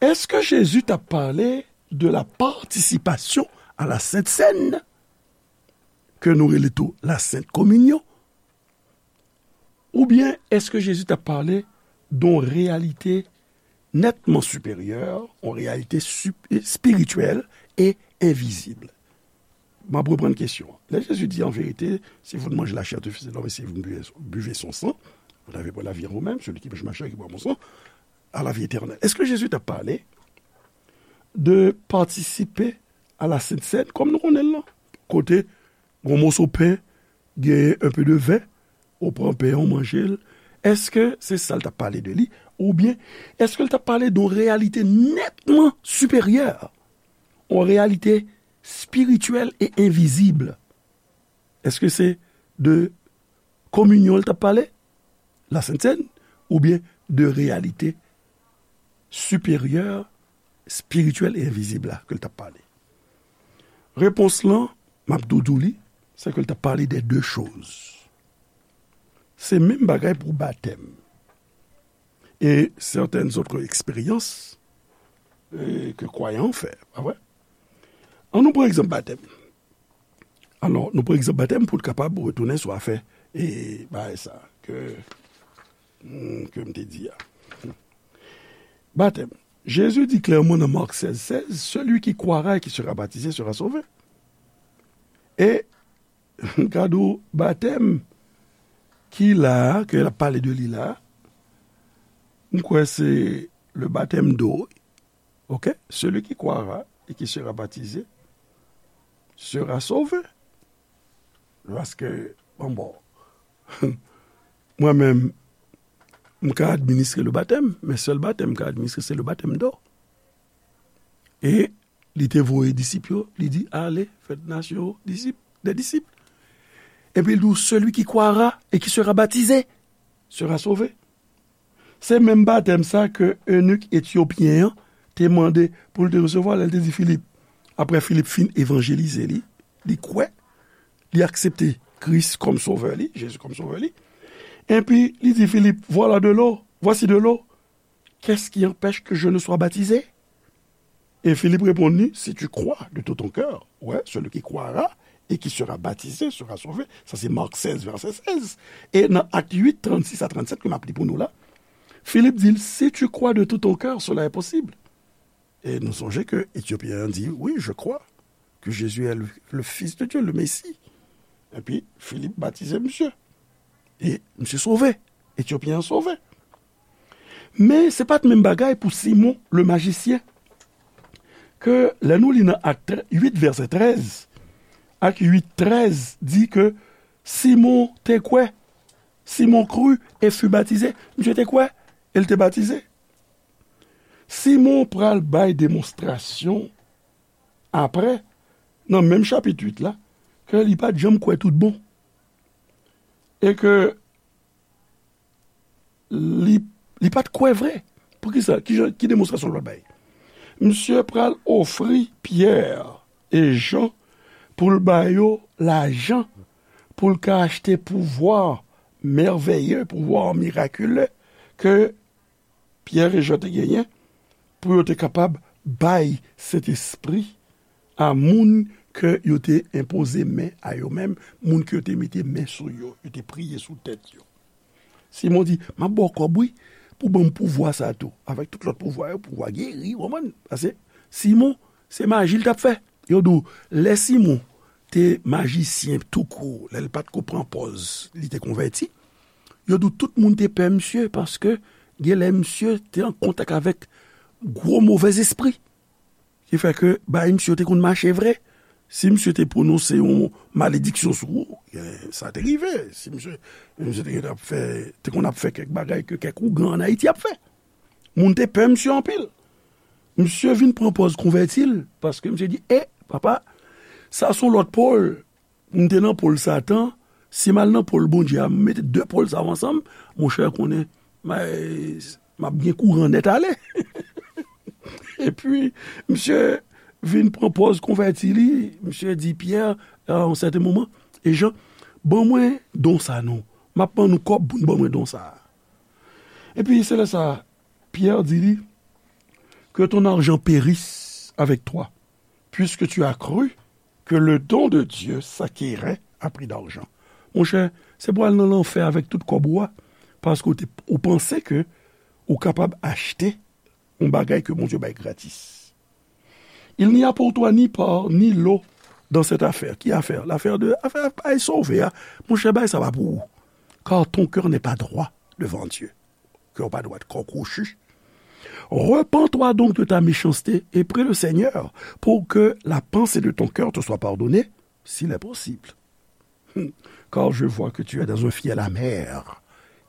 èske Jezi t ap pale de la participation à la Sainte Seine, ke nou rele tou la Sainte Communion? Oubyen èske Jezi t ap pale de yon reyalite nètman siperyè, yon reyalite sup-, espirityèl e envizib? M ap reprann kesyon an. Lè Jezi di, an verite, si vous ne mangez la chair du Fils de l'homme et si vous ne buvez, buvez son sang, vous n'avez pas la vie en vous-même, celui qui mange ma chair et qui boit mon sang a la vie éternelle. Èske Jezi t ap pale de patisipe a la Sent Sèn, kòm nou konnen l lan? Kote yon moso pen, genyen un peu de vin, ou pran pen an, ou manje l. Èske se sa l t ap pale de li? Oubyen, èske l t ap pale de yon reyalite nètman siperyè? Yon reyalite spirityèl e envizib? Èske se de kominyon l t ap pale, la Sent Sèn, oubyen de reyalite siperyè, spirityèl e envizib la ke l t ap pale? Repons lan, m ap tou di w li, se ke l t ap pale de de choz. Se menm bagay pou batèm. E sètèn zòt eksperyans, e, ke kwayan fè, pa vre? An nou pran egzanp batèm. Alò, nou pran egzanp batèm pou n kapab retounen sou afè, e, bagay sa ke, hmm, ke m te di a. Batèm. Jésus dit clairement dans Marc seize seize, celui qui croira et qui sera baptisé sera sauvé. E, gade w, batèm ki la a, ke l ap pale de li la a, m kwè se le baptême d'eau, ok? Celui qui croira et qui sera baptisé sera sauvé. Paske, bon, bon, mwen menm, m ka administre le batèm, men sèl batèm m ka administre, se le baptême d'eau. E li te voye disip yo, li di, allez, faites nations disciples, des disciples. Epi l di, celui qui croira et qui sera baptisé sera sauvé. Se menm batèm sa ke eunik etyopyen an te mande pou l te resevwa lè l te di Filip. Apre Filip fin evanjelize li, li kwè, li aksepte Kris kòm sovè li, Jezi kòm sovè li. Epi li di Filip, voilà de l'eau, voici de l'eau. Qu'est-ce qui empêche que je ne sois baptisé? E Filip reponn li, si tu crois de tout ton cœur, ouais, celui qui croira et qui sera baptisé sera sauvé. Sa se Mark sèz, vèsè sèz. E nan Ak uit, trannsis a trannsèt, ke m ap li pou nou la, Filip di l, si tu crois de tout ton cœur, cela est possible. E nou sonje ke Etyopyen an di, oui, je crois que Jésus est le, le Fils de Dieu, le Messie. Epi Filip batize misye. E misye sove. Etyopyen an sove. Men se pa t menm bagay pou Simon le majisyen. Ke lè nou li nan Ak uit, vèsè trèz, Ak uit trèz di ke Simon te kwè. Simon crut et fut baptisé. Misye te kwè, e l te batize. Simon pral bay demonstrasyon apre, nan menm chapit uit la, ke li pa t janm kwè tout bon. E ke li, li pa t kwè vre. Poukisa? Ki jan, ki demonstrasyon l pral bay? Misye pral ofri Pyè e Jan pou l ba yo lajan, pou l ka achte pouvwa mèveye, pouvwa mirakile ke Pyè e Jan te genyen pou yo te kapab bay Sentespri a moun ke yo te enpoze men a yo menm, moun ke yo te mete men sou yo, yo te priye sou tèt yo. Simon di, m ap ba w kòb, wi, pou ban m pouvwa sa a tou, avèk tout lòt pouvwa yo, pouvwa geri, w konprann? Paske Simon, se maji l t ap fè. Yo di w, lè Simon te majisyen toukou, lè l pa t ko pran pòz, li te konvèti, yo di w tout moun te pè misye, paske genlè misye te an kontak avèk gwo movèzespri. Ki fè ke bagay misye yo te konn mache vre. Si misye te pwononse yon malediksyon sou ou, eh, sa te rive. Si misye, misye te konn ap fè, te konn ap fè kèk bagay ke kèk ougan ann Ayiti ap fè. Moun te pè misye anpil. Misye vin pran pòz konvèti l, paske misye di, e, papa, sa se yon lòt pòl. M te nan pòl Satan, si m al nan pòl Bondye a, m mete de pòl sa yo ansanm, monchè, konnen, m, m ap gen kouran nèt ale. Epi, misye vin pran pòz konvèti li, misye di Pyè, a yon sèten moman, e Jan, ban mwen don sa non. M ap ban nou kòb pou n ban mwen don sa. Epi, se lè sa, Pyè di li, que ton argent périsse avec toi, puisque tu as cru que le don de Dieu s'acquérait à prix d'argent. Monchè, se pou al nan lanfè avèk tout kòb ou a, paske ou te, ou panse ke ou kapab achte yon bagay ke Bondye bay gratis. Il n'y a pour toi ni pain, ni eau, dans cette affaire. Ki afè? L'affaire de, afè, afè sove a. Monchè, bagay sa pa pou ou. Car ton cœur n'est pas droit devant Dieu. Kè w pa dwat, kò kwochi. Repens-toi donc de ta méchanceté et prie le Seigneur pour que la pensée de ton cœur te soit pardonnée, s'il est possible. Car je vois que tu es dans un fiel amer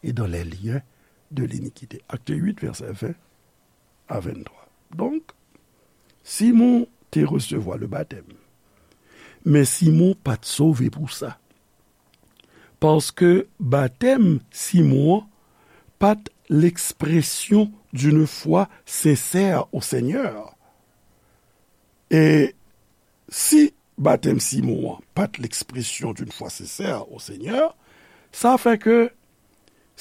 et dans les liens de l'iniquité. Acte huit, verset vingt à vingt-trois. Donk, Simon te resevwa le batèm. Men Simon pa t sove pou sa. Paske batèm Simon an pa t l'expression d'une foi sincère au Seigneur. E si batèm Simon an pa t l'expression d'une foi sincère au Seigneur, sa fè ke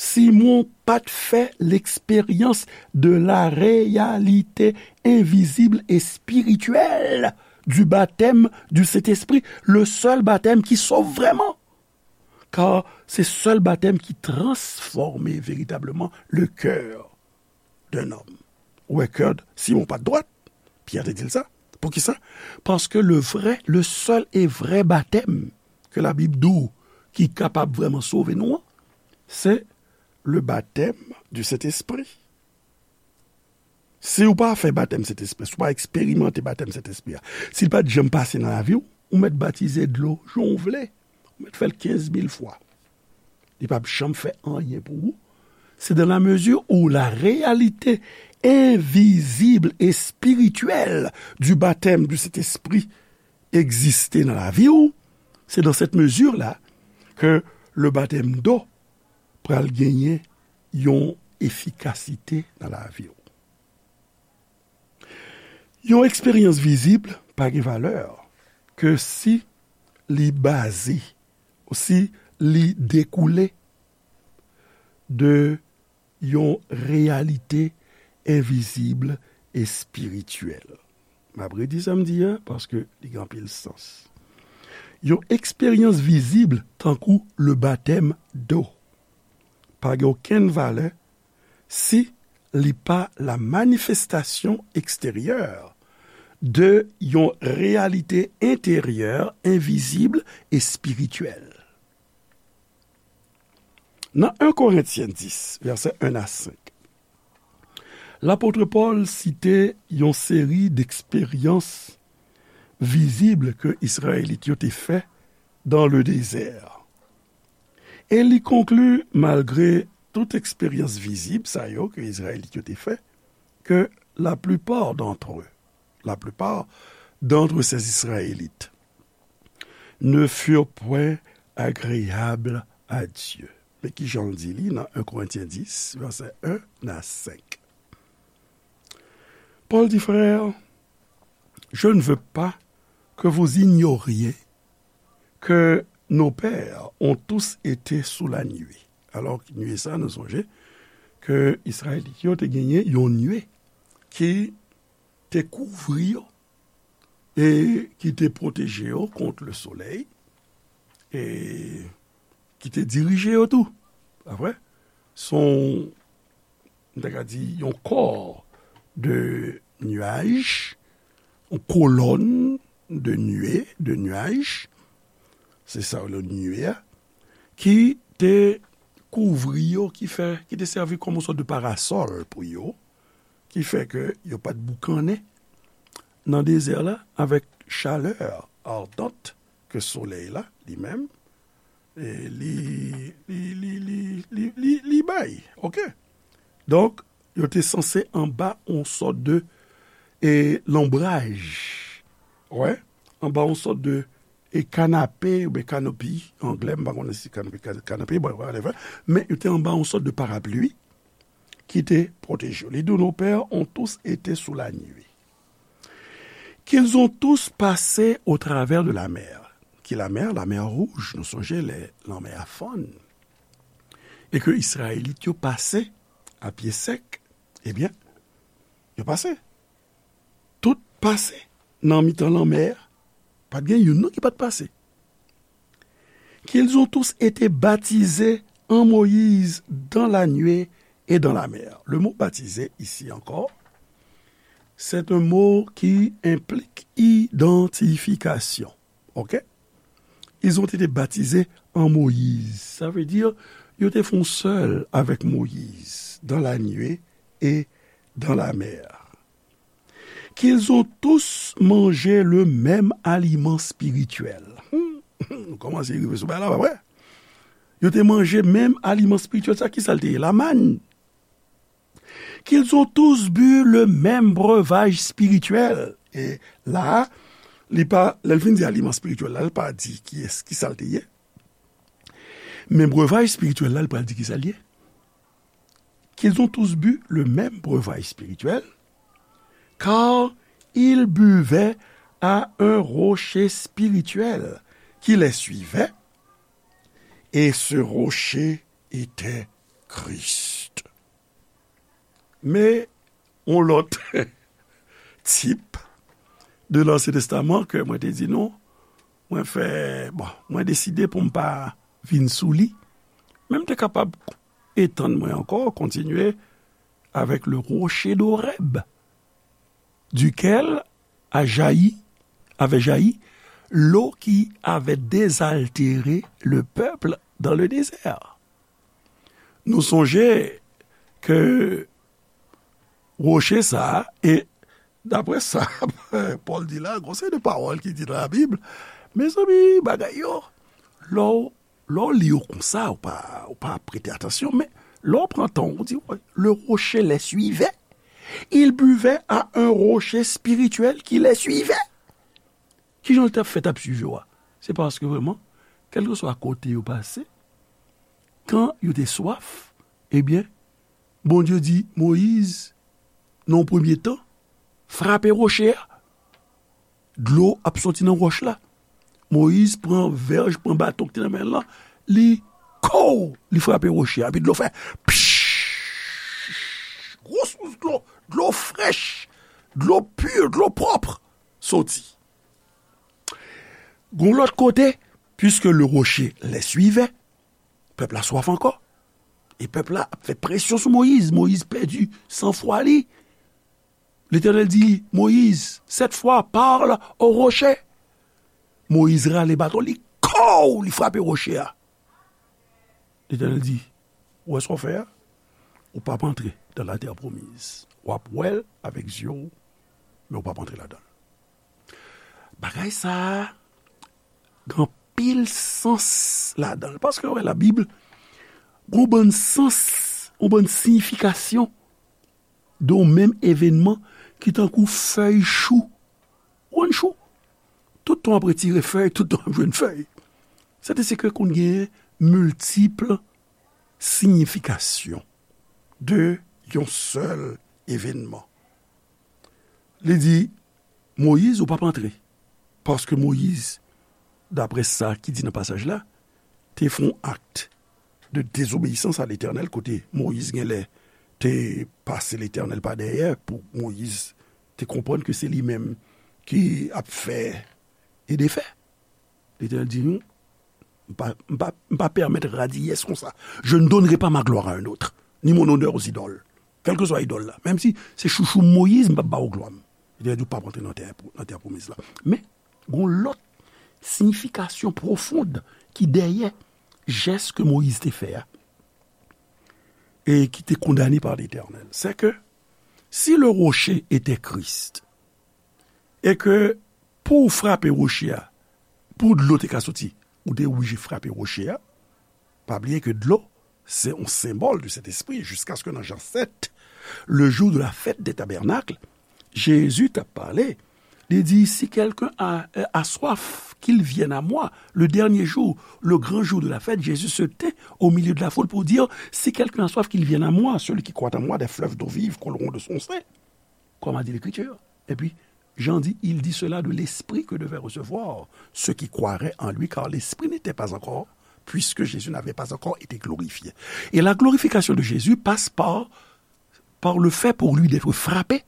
Simon pa t fè l'expérience de la réalité invisible et spirituelle du baptême du Saint-Esprit, le seul baptême qui sauve vraiment. Car c'est seul baptême qui transforme véritablement le cœur d'un homme. Ou wè, kè Simon pa t dwat. Pyè te di l sa. Poukisa? Paske le vrai, le seul et vrai baptême ke Labib di w ki kapab vrèman sove nou an, se le baptême du Saint-Esprit. Si w pa fè batèm Sentespri, si w pa eksperimante batèm Sentespri a, si l pa t janm pase nan lavi w, ou mèt batize dlo jan w vle, ou mèt fè l kenz mil fwa. Li p ap janm fè anyen pou ou. C'est dans la mesure où la réalité invisible et spirituelle du baptême du Saint-Esprit existe dans la vie, c'est dans cette mesure-là que le baptême d'eau pral genyen yon efikasite nan lavi w. Yon eksperyans vizib pa gen valè ke si li baze, si li dekoule de yon reyalite envizib espirityèl. M ap redi sa m di a, paske li gen anpil sans. Yon eksperyans vizib tankou le batèm do pa gen okenn valè si li pa la manifestasyon eksteryè de yon reyalite enteryè envizib espirityèl. Nan en Korentyen dis, vèsè en a senk, lapot Pòl site yon seri deksperyans vizib ke Izrayelit yo te fè dans le désert. E li konkli, malgre tout eksperyans vizib sa yo ke Izrayelit yo te fè, que la plupart d'entre eux, la plupart d'entre ces Israélites, ne furent point agréables à Dieu. Men ki jan l di li nan en Korentyen dis, vèsè en a senk. Pòl di, frères, je ne veux pas que vous ignoriez que nos pères ont tous été sous la nuée. Alò, nuée sa, nou sonje ke Izrayelit yo te genyen yon nuée ki te kouvri yo e ki te pwoteje yo kont le soleil e ki te dirije yo tou. Pa vre? Se yon, m ta ka di, yon kò de nuage, yon kolòn de nuée, de nuage, se sa yo rele nuée a, ki te kouvri yo, ki fè, ki te sèvi kòm yon sòt de parasòl pou yo, ki fè ke yo pa t boukannen nan dezè la avèk chalè ardant ke solèy la li menm, e, li, li, li, li, li, li, li bay. Oke? Donk, yo te sanse anba yon sòt de, e, lonbraj. Wè? Anba yon sòt de, e, kanape oubyen kanopi, anglè, m pa konnen si kanopi, kan-, kanape, bon, whatever. Men yo te anba yon sòt de parapli ki te pwoteje yo. Li di, nos pères ont tous été sous la nuée. Qu'ils ont tous passé au travers de la mer. Ki lamè? Lamè wouj, nou sonje lè lanmè a fann. E ke Izrayelit yo pase a pye sèk, ebyen, yo pase. Tout pase nan mitan lanmè a. Pa t gen youn non ki pa t pase. Qu'ils ont tous été baptisés en Moïse dans la nuée et dans la mer. Le mot baptisé ici encore, c'est un mot qui implique identification. Ok? Ils ont été baptisés en Moïse. Ça veut dire, yo te fè yon sèl avèk Moyiz dans la nuée et dans la mer. Qu'ils ont tous mangé le même aliment spirituel. Hmm. Nou kòmanse rive sou bagay la, pa vre? Yo te manje menm aliman espirityèl sa, ki sa l te ye? Lamann. Qu'ils ont tous bu le même breuvage spirituel. E la, li pa, lè l fin di aliman espirityèl la, li pa di kiyès, ki sa l te ye. Men breuvage spirituel la, li pral di ki sa l ye. Qu'ils ont tous bu le même breuvage spirituel, car ils buvaient à un rocher spirituel qui les suivait, et ce rocher était Christ. Men yon lòt tip de l'Ancien Testament ke mwen te di nou, mwen fè, bon, mwen deside pou m pa vin sou li, men m te kapab etann mwen ankò, kontinye avec le rocher d'Horeb, duquel a jailli, avait jailli l'eau qui avait désaltéré le peuple dans le désert. Nou sonje ke woche sa a, e daprè sa Pòl di la, gon seri de pawòl ki di nan Labib, mezanmi, bagay yo, lè w, lè w li yo konsa, ou pa, ou pa prete atansyon, men lè w pran tan, ou di, "Wè, le rocher les suivait, ils buvaient à un rocher spirituel qui les suivait." Kijan l t ap fè t ap swiv yo a? Se paske vrèman, kèlkeswa kote yo pase, kan yo te swaf, ebyen, Bondye di Moyiz, nan yon premye tan, frape woche a. Dlo ap soti nan wòch la. Moyiz pran vèj, pran baton ki te nan men l lan, li kow, li frape woche a, epi dlo fè pch! Gwo sous dlo, dlo frèch, dlo pi, dlo pwòp soti. Gon lòt kote, puisque le rocher les suivait, pèp la swaf ankò. E pèp la ap fè presyon sou Moyiz. Moyiz pèdi sanfwa li. Letènèl di Moyiz, sept fois, parle au rocher. Moyiz rale baton li, kow, li frape woche a. Letènèl di, "Ou wè sa w fè a? Ou p ap antre dans la terre promise. W ap wè l avèk zye w, men ou p ap antre ladan l." Bagay sa a gen anpil sans ladan l. Paske, wè, Labib gen yon bann sans, yon bann siyifikasyon de yon menm evènman ki tankou fèy chou. Ou konn chou? Tout tan w ap retire fèy, tout tan w ap jwenn fèy. Sètadi ke konn gen miltip siyifikasyon de yon sèl evènman. Li di, Moyiz, ou p ap antre. Paske Moyiz, daprè sa ki di nan pasaj la, te fè yon akt de dezobeyisans a Letènèl, kote Moyiz genlè te pase Letènèl pa dèyè, pou Moyiz te konprann ke se li menm ki ap fè e defè. Letènèl di nou, "M pa, m pa, m pa pèmèt radiyès konsa. Je ne donnerai pas ma gloire à un autre, ni mon honneur aux idoles." Kèlkeswa idòl la. Menm si se chouchou Moyiz, m p ap ba w glwa m. Letènèl di, "Ou p ap antre nan tè, nan tè pwomiz la." Men, gon lòt siyifikasyon pwofon ki dèyè jès ke Moyiz te fè a, e ki te kondane pa Letènèl. Se ke, si le rocher était Christ, e ke pou w frape woche a, pou dlo te ka soti, ou te oblije frape woche a. Pa bliye ke dlo, se yon senbòl de Sentespri, jiskaske nan Jan sèt, le jour de la fête des tabernacles, Jezi t ap pale, li di, "Si quelqu'un a, a soif, qu'il vienne à moi." Le dernier jour, le grand jour de la fête, Jésus se tint au milieu de la foule pour dire, "Si quelqu'un a soif, qu'il vienne à moi. Celui qui croit en moi, des fleuves d'eau vive couleront de son sein." Comme a dit l'Écriture. Epi, Jan di, "Il dit cela de l'esprit que devaient recevoir ceux qui croiraient en lui, car l'esprit n'était pas encore, puisque Jésus n'avait pas encore été glorifié." Et la glorification de Jésus passe par, par le fait pour lui d'être frappé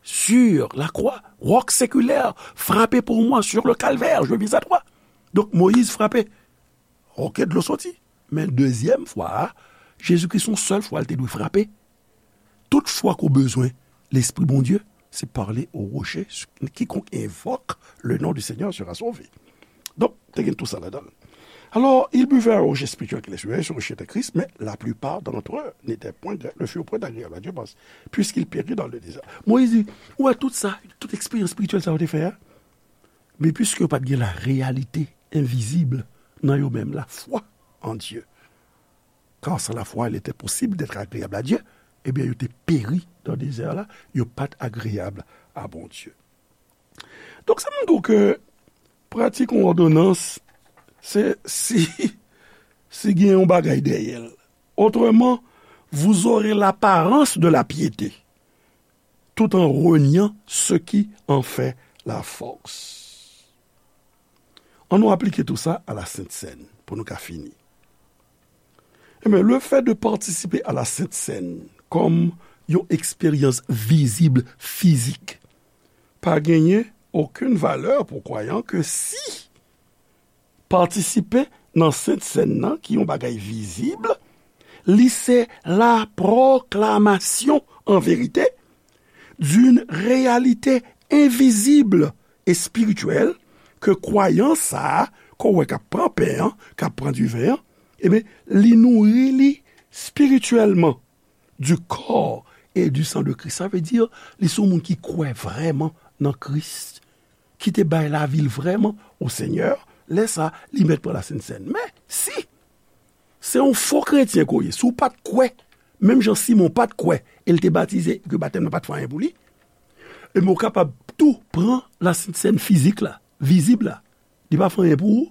sur la croix, roc séculaire, frappé pour moi sur le calvaire, je viens à toi. Donk, Moyiz frape. Ok, dlo soti. Men dezyèm fwa a, Jezikri se yon sèl fwa l te dwe frape. Tout fwa ke w bezwen Lespri Bondye, se pale au rocher, quiconque invoque le nom du Seigneur sera sauvé. Donk, te gen tou sa ladan l. Alors, ils buvèrent au rocher spirituel qu'il est, c'est un rocher de Christ, mais la plupart d'entre eux n'étaient point, ne furent point agréables à Dieu, parce, puisqu'ils périrent dans le désert. Moyiz di, ou wè tout sa, tout eksperyans espirityèl sa yo te fè a, men piske yo pa t gen la réalité invisible nan yo menm, la foi en Dieu. Car sans la foi, il était possible d'être agréable à Dieu. Ebyen, yo te peri nan dezè la, yo pa t agreyab a Bondye. Donk, sa montre w ke pratik yon òdonans, se si, si gen yon bagay dèyè l. Autrement, vous aurez l'apparence de la piété, tout en reniant ce qui en fait la force. Ann nou aplike tou sa a la Sent Sèn pou nou ka fini. Ebyen, le fait de participer à la Sainte Seine kòm yon eksperyans vizib, fizik, pa genyen okenn valè pou kwayan ke si patisipe nan Sent Sèn nan, ki yon bagay vizib, li se la proclamation en vérité d'une réalité invisible et spirituelle ke kwayan sa a, ke w wè k ap pran pen an, k ap pran diven an, ebyen, li nouri li spirityèlman du corps et du sang de Christ. Sa vle di, li se yon moun ki kwè vrèman nan Kris, ki te bay lavi l vrèman o Senyè, lè sa a, li mèt pran la Sent Sèn. Men, si se yon fo kretyen ke w ye, si w pa t kwè, menm jan Simon pa t kwè, e l te batize, ke batèm nan pa t fè anyen pou li, ebyen, w kapab tou pran la Sent Sèn fizik la, vizib la. Li pa fè anyen pou ou.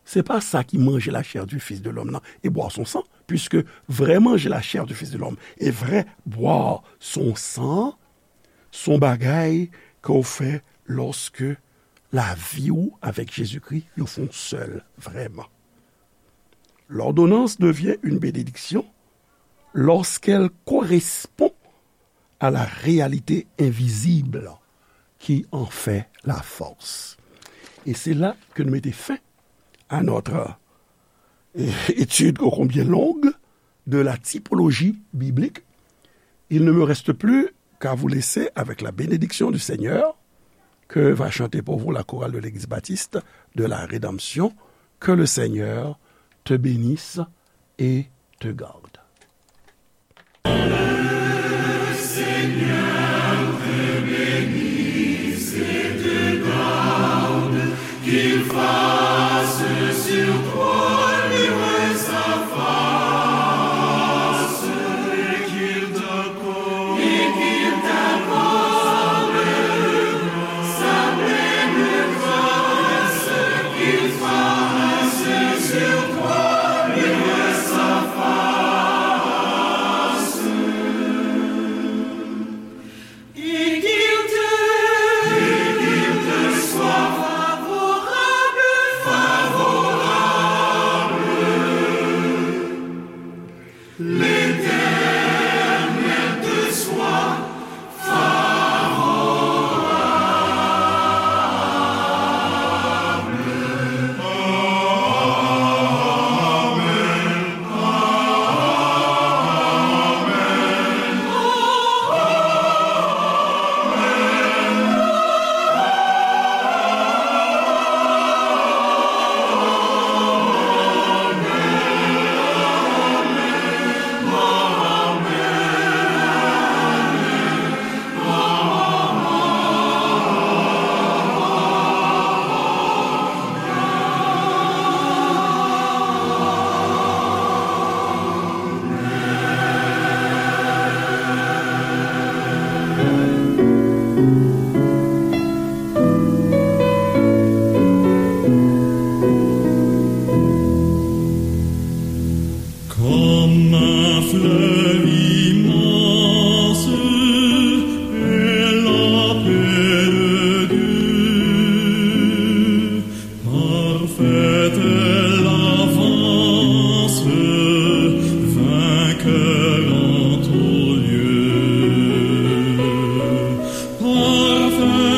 Se pa sa ki manje la chair du Fils de l'homme nan et boire son sang, puisque vrai manger la chair du Fils de l'homme et vrai boire son sang, se yon bagay ke w fè lòske lavi w avèk Jezikri yo fè yon sèl vrèman. L'ordonnance devient une bénédiction lorsqu'elle correspond à la réalité invisible qui en fait la force. Et c'est là que nous mettons fin à notre, euh, étude ô combien longue de la typologie biblique. Il ne me reste plus qu'à vous laisser avec la bénédiction du Seigneur que va chanter pour vous la chorale de l'Église baptiste de la Rédemption. Que le Seigneur te bénisse et te garde. Comme un fleuve immense est la paix de Dieu. Parfaite est l'avance, vainqueur en tout lieu. Parfaite